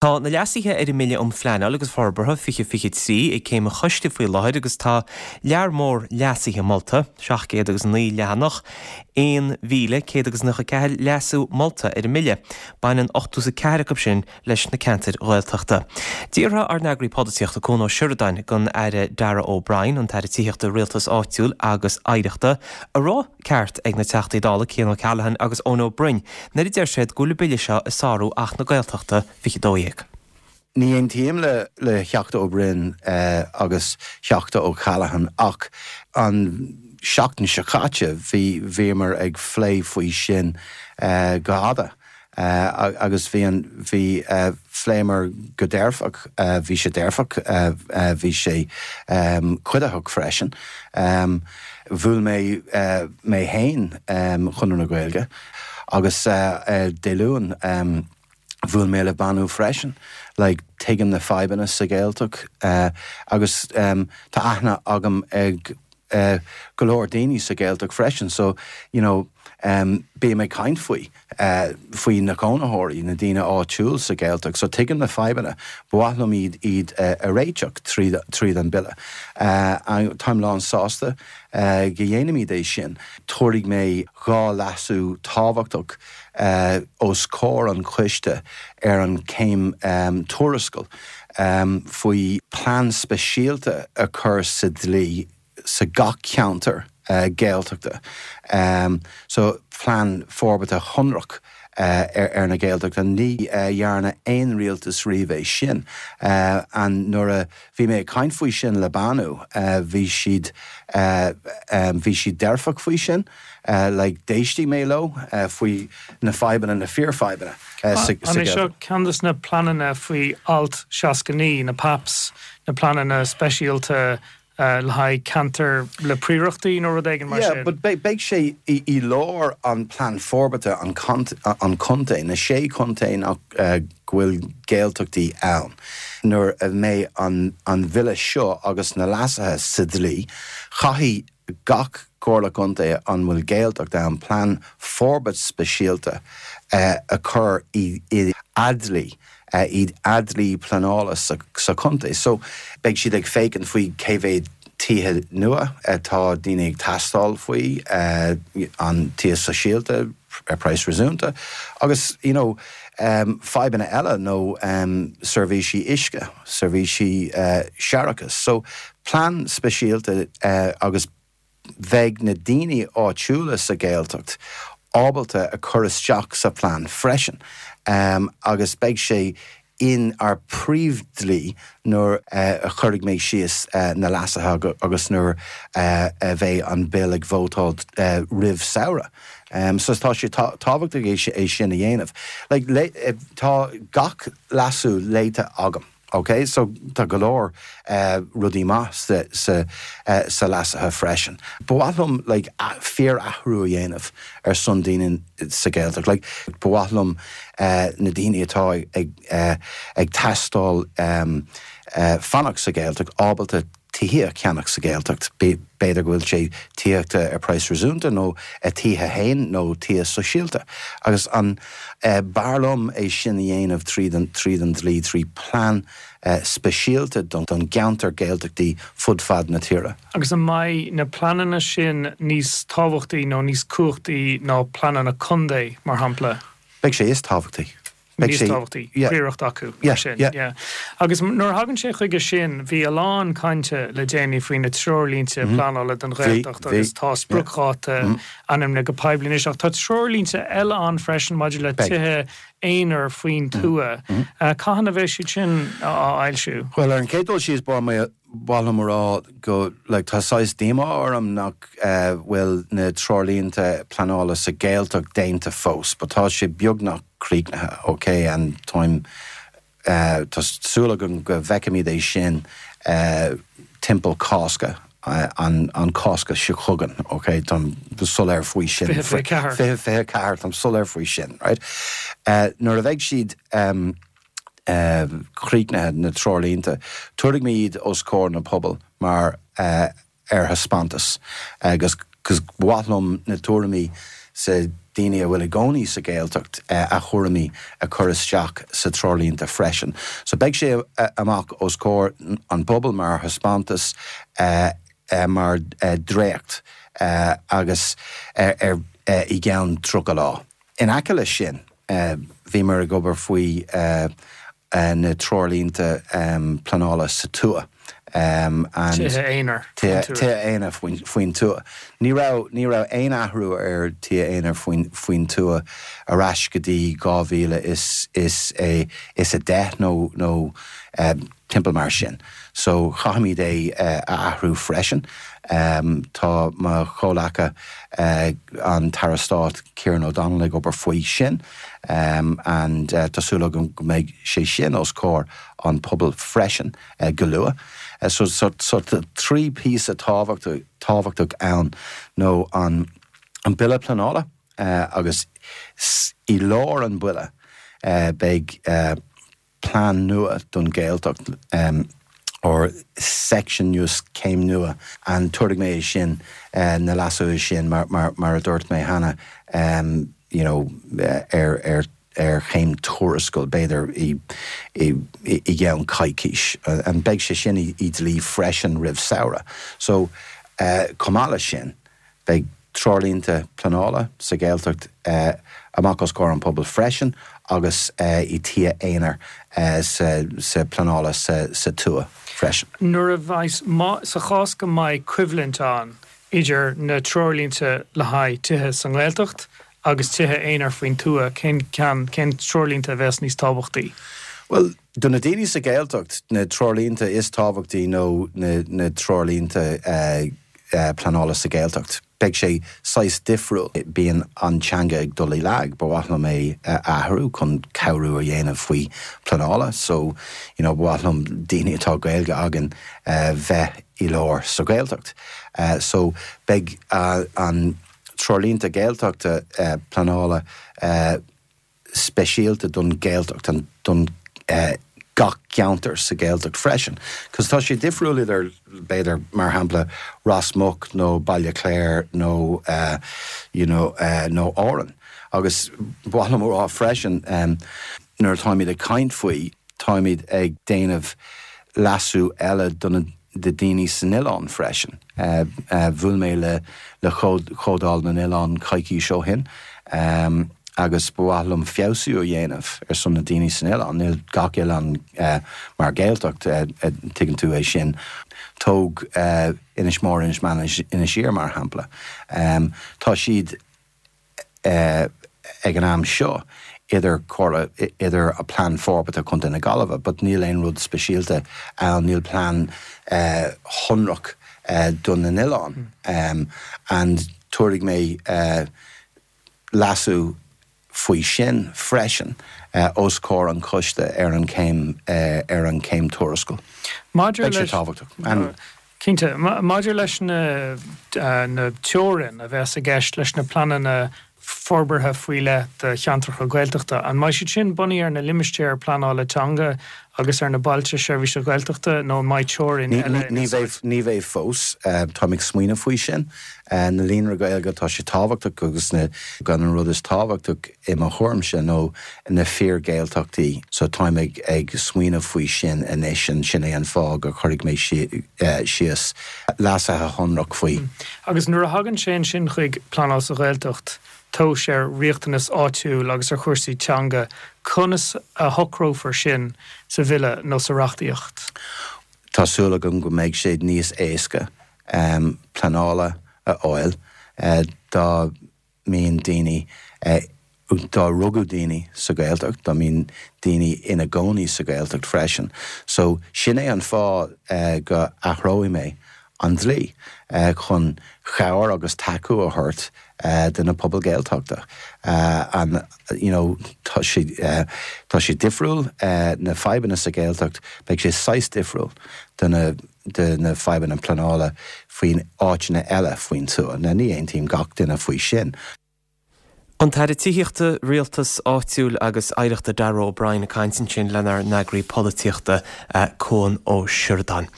Tá na leasuithe ar an mBille um Phleanáil agus Forbartha 2023 ag céim an choiste faoi láthair agus tá lear mór leasuithe molta, 709 leathanach, 1,194 leasú molta ar an mBille. Baineann 84 acu sin leis na ceantair Ghaeltachta. D'fhiafraigh ár n-eagraí polaitíochta Cuan Ó Seireadáin den Aire Darragh O'Brien, an tAire Tithíochta, Rialtais Áitiúil agus Oidhreachta, an raibh ceart ag na Teachtaí Dála Cian O'Callaghan agus Eoin Ó Broin nuair a deir siad go bhfuil an bille seo ag sárú Acht na Gaeltachta 2012. Ní aontaím le le Theachta Ó Broin agus Theachta O'Callaghan ach an seachtain seo caite bhí bhíomar ag phlé faoi sin go fhada. Agus bhí an, bhí, phléamar go dearfach, bhí sé dearfach, bhí sé cuiditheach freisin. Bhuail mé mé fhéin Chonradh na Gaeilge agus Dé Luain bhuail mé le Bánú freisin. Like tuigim na fadhbanna sa Ghaeltacht agus tá aithne agam ag go leor daoine sa Ghaeltacht freisin so you know bím ag caint faoi, faoi na cónaitheoirí, na daoine áitiúil sa Ghaeltacht so tuigim na fadhbanna, ba mhaith liom iad iad a réiteach tríd tríd an bille. Táim lán sásta go dhéanaimid é sin. Tabharfaidh mé 2 leasú tábhachtach os comhair an choiste ar an céim tuarascáil faoi plean speisialta a chur sa dlí sa gach ceantar Gaeltachta. So plean forbartha shonrach ar na Gaeltachta. Ní dhearna aon rialtas riamh é sin. And nuair a bhí mé ag caint faoi sin le Bánú bhí siad bhí siad dearfach faoi sin. Like d'éistigh mé leo faoi na fadhbanna, na fíorfhadhbanna sa An é seo ceann de na pleananna faoi Alt 69, na PAPs, na pleananna speisialta le haghaidh ceantair le príorachtaí nó rud éigin mar sin? Yeah, but beidh sé i lár an plean forbartha an contae, na sé chontae nach go bhfuil Gaeltachtaí ann. Nuair a mbeidh an bhille seo agus na leasuithe sa dlí, caithfidh gach Comhairle Contae an bhfuil Gaeltacht ann plean forbairt speisialta a chur i a dlí, i a dlí pleanála sa chontae. So beidh siad ag féachaint faoi cé mhéad tithe nua atá daoine ag teastáil faoi, an tithe sóisialta ar praghas réasúnta agus you know fadhbanna eile nó seirbhísí uisce, seirbhísí séarachais. So plean speisialta agus bheidh na daoine áitiúla sa Ghaeltacht ábalta a chur isteach sa phlean freisin agus beidh sé in ár príomhdhlí nuair a chuirfidh mé síos na leasuithe agus nuair a bheidh an Bill ag vótáil roimh samhradh. So tá sé tábhachtach é sin a dhéanamh. Like tá gach leasú léite agam. Ok, so tá go leor rudaí maith sa sa sa leasuithe freisin. Ba mhaith liom like fíor-athrú a dhéanamh ar son daoine sa Ghaeltacht. Like ba mhaith liom na daoine atá ag ag teastáil fanacht sa Ghaeltacht ábalta tithe a cheannach sa Ghaeltacht, b'fhéidir go bhfuil sé tithíochta ar praghas réasúnta nó a tithe fhéin nó tithe sóisialta. Agus an b'fhearr liom é sin a dhéanamh tríd an tríd an dlí, trí plean speisialta don gceantar Gaeltachtaí fud fad na tíre. Agus an mbeidh na pleananna sin níos tábhachtaí nó níos cumhachtaí ná pleananna contae, mar shampla? Beidh sé is tábhachtaí. níos tábhachtaí, príoracht acu mar sin. Yeah. Agus nuair a thagann sé chuige sin, bhí a lán cainte le déanaí faoi na treoirlínte pleanála don Ghaeltacht agus tá spriocdháta ainmnithe go poiblí anois. Ach tá treoirlínte eile ann freisin maidir le tithe aonair faoin tuath. Cathain a bheidh siad sin á fhoilsiú? Bhuel, ar an chéad dul síos, ba mhaith liom a rá go, like, tá saghas díomá orm nach bhfuil na treoirlínte pleanála sa Ghaeltacht déanta fós, but tá sé beagnach críochnaithe, ok, and táim, tá súil agam go bhfeicfimid é sin timpeall Cásca, an, an Cásca seo chugainn, ok, táim soiléir faoi sin. 2024. 2024, táim soiléir faoi sin, right. Nuair a bheidh siad críochnaithe, na treoirlínte, tabharfaidh mé iad os comhair na pobal mar ar thaispeántas agus ba mhaith liom na tuairimí sa. daoine a bhfuil i gcónaí sa Ghaeltacht a thuairimí a chur isteach sa treoirlínte freisin. So beidh sé amach os comhair an pobail mar thaispeántas, mar dréacht agus ar i gceann 30 lá. In aice leis sin, bhíomar ag obair faoi na treoirlínte pleanála sa tuath. Tithe aonair faoin tuath. Tithe aonair faoin tuath. Ní raibh, ní raibh aon athrú ar tithe aonair faoin, faoin tuath ar ais go dtí 2010 nó, nó timpeall mar sin. So chaithfimid é a athrú freisin. Tá mo chomhleaca, an tAire Stáit Kieran O'Donnell ag obair faoi sin and tá súil agam go mbeidh sé sin os comhair an pobail freisin go luath. So so tá 3 píosa tábhachtach ann nó an Bille Pleanála agus i lár an bhille beidh plean nua don Ghaeltacht or section nua, céim nua and tabharfaidh mé é sin, na leasuithe sin mar mar a dúirt mé cheana you know ar ar ar chéim tuarascáil b'fhéidir i i i gceann coicís and beidh sé sin i i dlí freisin roimh samhradh. So chomh maith leis sin Beidh treoirlínte pleanála sa Ghaeltacht amach os comhair an pobail freisin agus i tithe aonair sa pleanála sa tuath freisin. Nuair a bheas, sa chás go mbeidh coimhlint ann idir na treoirlínte le haghaidh tithe sa nGaeltacht agus tithe aonair faoin tuath, cén ceann, cén treoirlínte a bheas níos tábhachtaí? Bhuel, do na daoine sa Ghaeltacht, na treoirlínte is tábhachtaí nó na treoirlínte pleanála sa Ghaeltacht. Beidh sé saghas difriúil. Bíonn an teanga ag dul i lag. Ba mhaith liom é a athrú chun cabhrú a dhéanamh faoi pleanála. So, you know, ba mhaith liom daoine atá Gaeilge againn bheith i lár sa Ghaeltacht. So, beidh an treoirlínte Gaeltachta pleanála speisialta don Ghaeltacht and don gach ceantar sa Ghaeltacht freisin. Cos tá sé difriúil idir, b'fhéidir, mar shampla, Ros Muc nó Baile Chláir nó you know nó Árainn. Agus ba mhaith liom a rá freisin, nuair atáimid ag caint faoi, táimid ag déanamh leasú eile do na do daoine san oileán freisin. Bhuail mé le le Comhdháil na nOileán coicís ó shin agus ba mhaith liom feabhsú a dhéanamh ar son na daoine san oileán. Níl gach oileán mar Ghaeltacht, tuigeann tú é sin. Tóg Inis Mór, Inis Meáin, Inis Oírr mar shampla. Tá siad ag an am seo idir comhairle, idir a plean forbartha Chontae na Gaillimhe but níl aon rud speisialta ann, níl plean shonrach do na n-oileán and tabharfaidh mé leasú faoi sin freisin os comhair an choiste ar an chéim ar an chéim tuarascáil. Maidir Beidh sé tábhachtach and. Cinnte. Maidir leis na na teorainn a bheas i gceist leis na pleananna forbartha faoi leith do cheantracha Gaeltachta, an mbeidh siad sin bunaithe ar na limistéir pleanála teanga agus ar na bailte seirbhíse Gaeltachta nó an mbeidh teorainn eile in úsáid? Ní bheidh fós. Táim ag smaoineamh faoi sin. Na líonra Gaeilge, tá sé tábhachtach agus na gan an rud is tábhachtach i mo thuairimse nó na fíor-Ghaeltachtaí. So táim ag ag smaoineamh faoi sin anois and sin é an fáth gur chuirfidh mé síos leasuithe shonrach faoi. Agus nuair a thagann sé ansin chuig pleanáil sa Ghaeltacht, tomhais ar riachtanas áitiúil agus ar chúrsaí teanga, conas a shocrófar sin sa bhille nó sa reachtaíocht? Tá súil agam go mbeidh sé níos éasca pleanála a fháil dá mbíonn daoine, dá rugadh daoine sa Ghaeltacht, dá mbíonn daoine ina gcónaí sa Ghaeltacht freisin. So, sin é an fáth go athróidh mé an dlí, chun chabhair agus tacú a thabhairt do na pobail Gaeltachta. And, you know, tá sé, tá sé difriúil, na fadhbanna sa Ghaeltacht, beidh sé saghas difriúil do na, de na fadhbanna pleanála faoin áiteanna eile faoin tuath. Now ní aontaím gach duine faoi sin. An tAire Tithíochta, Rialtais Áitiúil agus Oidhreachta Darragh O'Brien ag caint ansin lenár n-eagraí polaitíochta Cuan Ó Seireadáin.